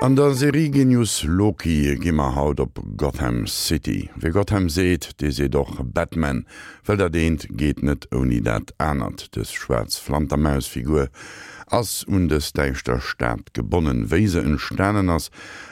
An der Serie Genius Loki gi mer haut op Gotham City. Wie Gotham seet, dee seet och Batman, well dat eent geet net ouni dat anert. Dës schwaarz Flantermaus-Figur ass un dës däischter Stad gebonnen. Wéi se entstanen ass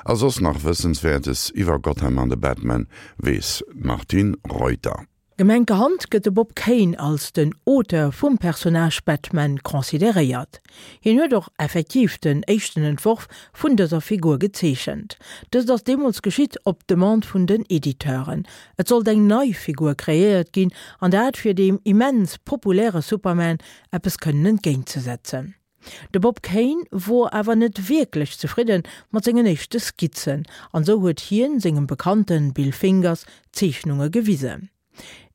a soss nach Wëssenswäertes iwwer Gotham an de Batman weess d'Martine Reuter. Gemenkerhand gëtt de Bob Kane als den Auteur vum Personnage Batman consideréiert. Hien huet och effektiv den éischten Entworf vun dëser Figur gezeechent. Dëst ass deemools geschitt op Demande vun den Editeuren. Et sollt eng nei Figur kreéiert ginn, an dat fir deem immens populäre Superman eppes kënnen entgéintzesetzen. De Bob Kane wor awer net wierklech zefridden mat sengen éischte Skizzen, an sou huet hien sengem Bekannten Bill Fingers d'Zeechnunge gewisen.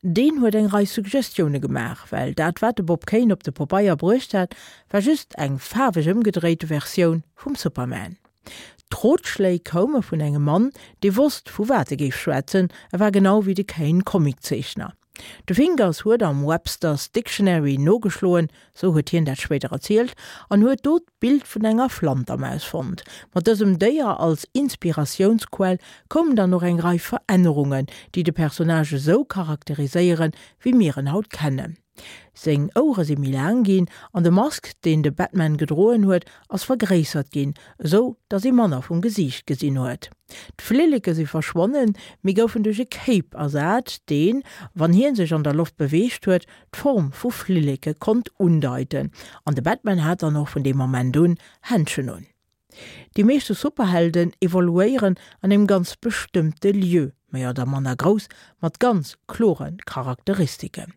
Deen huet eng Rei Suggestioune gemaach, well dat wat de Bob Kane op de Pobeier bruecht hat, war just eng faarweg ëmgedréite Versioun vum Superman. D'Rotschléi koume vun engem Mann, dee wosst vu wat e géif schwätzen, e war genau wéi de Kane Comiczeechner. De Fingers huet am Webster's Dictionary nogeschloen, sou huet hien dat spéider erzielt, an huet do d'Bild vun enger Flantermaus fonnt. Mat dësem Déier als Inspiratiounsquell koumen dann och eng Rei Verännerungen, déi de Personnage esou charakteriséieren, wéi mir en haut kennen. Seng Ouere si méi laang ginn an de Mask, deen de Batman gedroen huet, ass vergréissert ginn, esou datt ee manner vum Gesiicht gesinn huet. D'Flilleke si verschwonnen, mee goufen duerch e Cape ersat, deen, wann hie sech an der Loft beweegt huet, d'Form vu Flilleke konnt undeiten. An de Batman hat dann och vun deem Moment un Händschen un. Déi meeschte Superhelden evoluéieren an engem ganz bestëmmte Lieu, méi oder manner grouss, mat ganz klore Charakteristiken.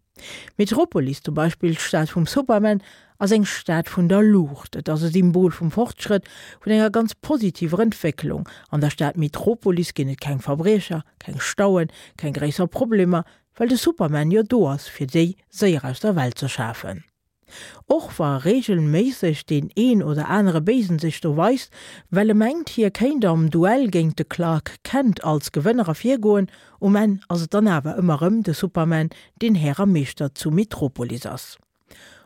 Metropolis zum Beispill, d'Stad vum Superman, ass eng Stad vun der Luucht. Et ass e Symbol vum Fortschrëtt, vun enger ganz positiver Entwécklung. An der Stad Metropolis ginn et keng Verbriecher, keng Stauen, keng gréisser Problemer, well de Superman jo do ass, fir déi séier aus der Welt ze schafen. Och wa reegelméisseg deen een oder anere Béisen sech do weist, well e mengt, hie kéint am Duell géint de Clark Kent als Gewënner ervirgoen, um Enn ass et dann awer ëmmer rëm de Superman, deen Här a Meeschter zu Metropolis ass.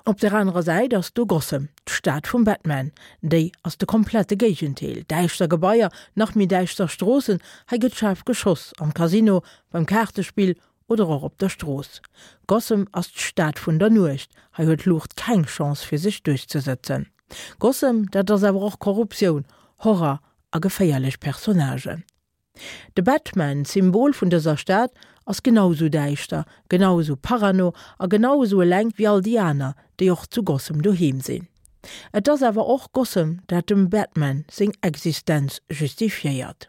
Op der anerer Säit ass do Gotham, d'Stad vum Batman. Déi ass de komplette Géigendeel, däischter Gebaier, nach méi däischter Stroossen, hei gëtt schaarf geschoss, am Casino, beim Kaartespill oder och op der Strooss. Gotham ass d'Stad vun der Nuecht, hei huet d'Luucht keng Chance fir sech duerchzesëtzen. Gotham, dat ass awer och Korruptioun, Horror a geféierlech Personnagen. De Batman, d'Symbol vun dëser Stad, ass genau esou däischter, genau esou parano a genau esou eleng wéi all déi aner, déi och zu Gotham doheem sinn. Et ass awer och Gotham, dat dem Batman seng Existenz justifiéiert.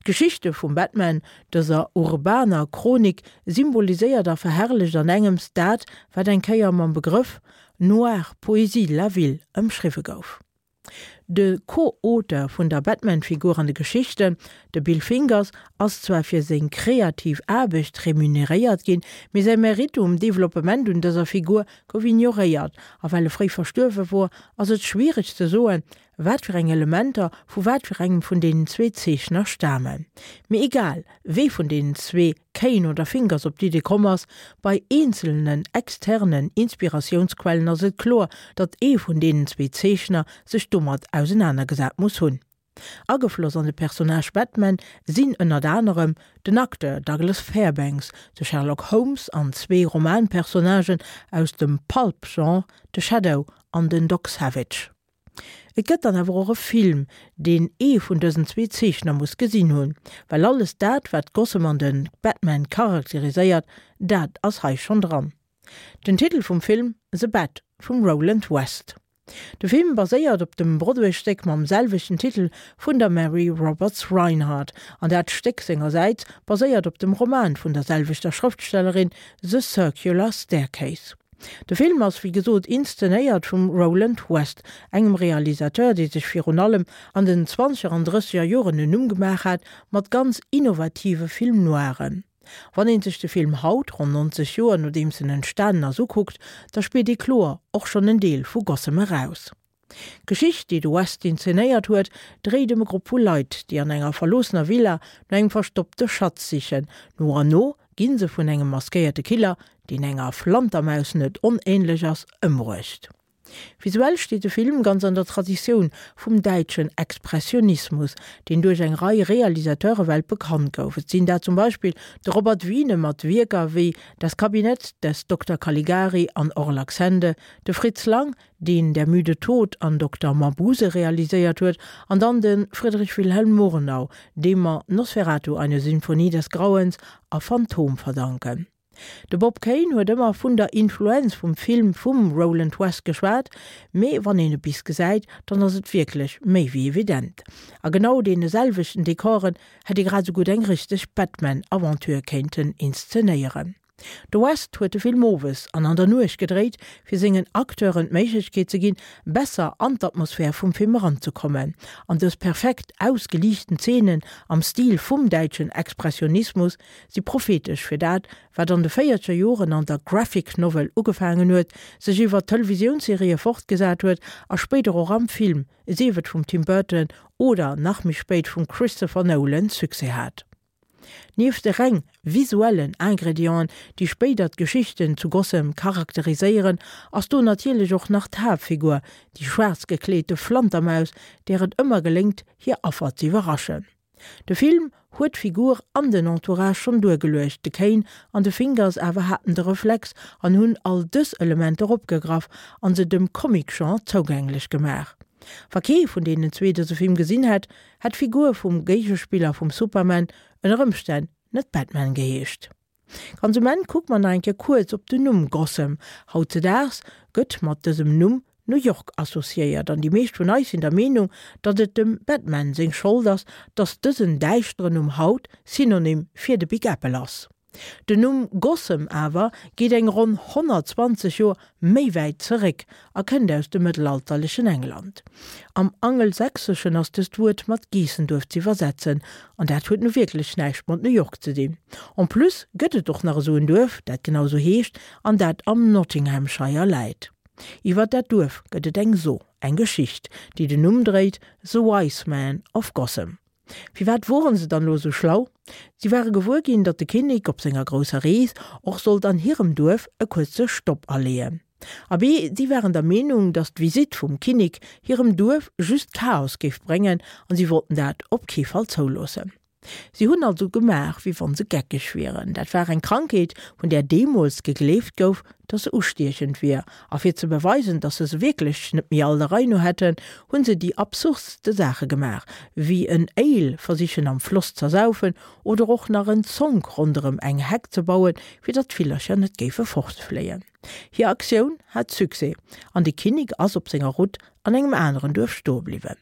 D'Geschichte vum Batman, dëser urbaner Chronik, symboliséiert a verherrlecht an engems dat, wat eng Kéier mam Begrëff noire poésie de la ville ëmschriwwe gouf. De Co-Auteur vun der Batman-Figur an de Geschichten, de Bill Fingers, ass zwar fir seng kreativ Aarbecht remuneréiert ginn, mee säi Meritte um Developpement un dëser Figur gouf ignoréiert, a well e fréi verstuerwe wor, ass et schwiereg ze soen, wat fir eng Elementer vu wat fir engem vun deenen zwee Zeechner stamen. Mee egal, wee vun deenen zwee, Kane oder Fingers, op d'Idee komm ass, bei eenzelnen externen Inspiratiounsquellen ass et kloer, datt ee vun deenen zwee Zeechner sech domat ausenanergesat muss hunn. Agefloss an de Personnage Batman sinn ënnert anerem den Acteur Douglas Fairbanks, de Sherlock Holmes an zwee Romanpersonnagen aus dem Pulp-Genre, de Shadow an den Doc Savage. Et gëtt dann awer och e Film, deen ee vun dësen zwee Zeechner muss gesinn hunn, well alles dat, wat Gotham an de Batman charakteriséiert, dat ass hei schonn dran. Den Titel vum Film, The Bat vum Roland West. De Film baséiert op dem Broadway-Stéck mam selwechten Titel vun der Mary Roberts Rinehart, an dat Stéck sengersäits baséiert op dem Roman vun der selwechter Schrëftstellerin The Circular Staircase. De Film ass wéi gesot inszenéiert vum Roland West, engem Realisateur, dee sech virun allem an den zwanzeger an drësseger Joren en Numm gemaach hat mat ganz innovative Film noiren. Wann een sech de Film haut, ronn 90 Joer nodeems en entstanen ass, ukuckt, da spiert ee kloer och schonn en Deel vu Gotham eraus. D'Geschicht, déi de West inzenéiert huet, dréit ëm e Grupp vu Leit, déi an enger verloossener Villa no engem verstoppte Schatz sichen. No an no gi se vun engem maskéierte Killer, deen enger Flantermaus net onähnlech ass, ëmbruecht. Visuell steet de Film ganz an der Traditioun vum däitschen Expressionismus, deen duerch eng Rei Realisateure weltbekannt gouf. Et sinn dat zum Beispill de Robert Wiene mat Wierker wéi Das Kabinett des Dokter Caligari an Orlacs Hände, de Fritz Lang, deen Der müde Tod an Dokter Mabuse realiséiert huet, an dann de Friedrich Wilhelm Murnau, deem mer Nosferatu, eine Sinfonie des Grauens a Phantom verdanken. De Bob Kane huet ëmmer vun der Influenz vum Film vum Roland West geschwat, mee wann een e bis gesäit, dann ass et wierklech méi wéi evident. A genau deene selwechten Dekoren hätt ee grad esou gutt eng richteg Batman-Aventure kéinten inszenéieren. De West huet de Film owes an an der Nuecht gedréit, fir sengen Acteuren d'Méiglechkeet ze ginn, besser an d'Atmosphär vum Film eranzekommen. An dës perfekt ausgeliichten Zeenen am Stil vum däitschen Expressionismus si prophetesch fir dat, wat an de véierzeger Joren an der Graphic Novel ugefaangen huet, sech iwwer d'Televisiounserië fortgesat huet a spéider och am Film, sief et vum Tim Burton oder nach méi spéit vum Christopher Nolan, Succès hat. Nieft de reng visuellen Ingredienten, déi spéider d'Geschichten zu Gotham charakteriséieren, ass do natierlech och nach d'Haaptfigur, déi schwaarz gekleete Flantermaus, där et ëmmer geléngt, hir Affer z'iwwerraschen. De Film huet d'Figur an den Entourage schonn duergeluecht, de Kane an de Fingers awer haten de Reflex an hunn all dës Elementer opgegraff an se dem Comic-Genre zougänglech gemaach. Wa kee vun deenen zwee dëse Film gesinn hätt, hätt d'Figur vum Géigespiller vum Superman ënner Ëmstänn net Batman geheescht. Ganz um Enn kucke mer nach eng Kéier kuerz op den Numm Gotham. Hautzedaags gëtt mat dësem Numm New York associéiert an déi meescht vun eis sinn der Meenung, datt et dem Batman seng Schold ass, datt dësen däischteren Numm haut Synonym fir de Big Apple ass. Den Numm Gotham awer geet eng ronn 120 Joer méi wäit zeréck a kënnt aus dem mëttelalterlechen England. Am Angelsächseschen ass dëst Wuert mat Geessenduerf z'iwwersetzen, an dat huet nu wierklech näischt mat New York ze dinn. En plus gëtt et och nach esou en Duerf, dat genau esou heescht an dat am Nottinghamshire läit. Iwwer dat Duerf gëtt et eng So, eng Geschicht, déi den Numm dréit, The Wise Man of Gotham. Firwat woren se dann elo esou schlau? Si ware gewuer ginn, datt de Kinnek op senger grousser Rees och sollt an hirem Duerf e kuerze Stopp aleeën. Abee, si waren der Meenung, datt d'Visitt vum Kinnek hirem Duerf just Chaos géif bréngen an si wollten dat op kee Fall zouloossen. Si hunn also gemaach, wéi wann se geckeg wieren. Dat war eng Krankheet, vun där deemools gegleeft gouf, dass se ustiechend wier, a fir ze beweisen, dass se se wierklech net méi all der Rei no hätten, hunn se déi absurdste Saache gemaach, wéi en Ale versichen am Floss z'ersaufen oder och nach en Zonk ronderëm eng Heck ze bauen, fir datt d'Villercher net géife fortfléien. Hir Aktioun hat Succès an de Kinnek ass op senger Route an engem aneren Duerf stoe bliwwen.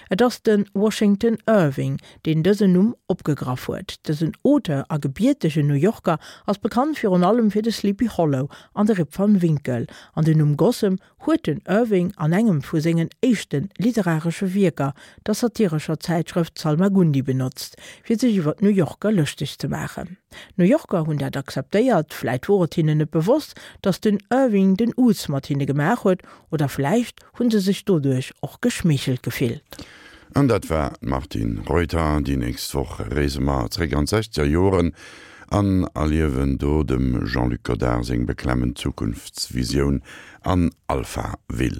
Et ass de Washington Irving, deen dësen Numm opgegraff huet. Dësen Auteur a gebiertegen New Yorker ass bekannt virun allem fir de Sleepy Hollow an de Rip Van Winkle, an den Numm Gotham huet den Irving an engem vu sengen éischte literaresche Wierker, der satirescher Zäitschrëft Salmagundi benotzt, fir sech iwwer d'New Yorker lëschteg ze maachen. D'New Yorker hunn dat akzeptéiert, vläit wor et hinnen net bewosst, datt den Irving den Uz mat hinne gemaach huet, oder vläicht Hunn se sech doduerch och geschmeechelt gefillt? An dat war d'Martine Reuter. Déi nächst Woch reese mer zréck an d'sechzeger Joren an erliewen do dem Jean-Luc Godard seng beklemmend Zukunftsvisioun an Alphaville.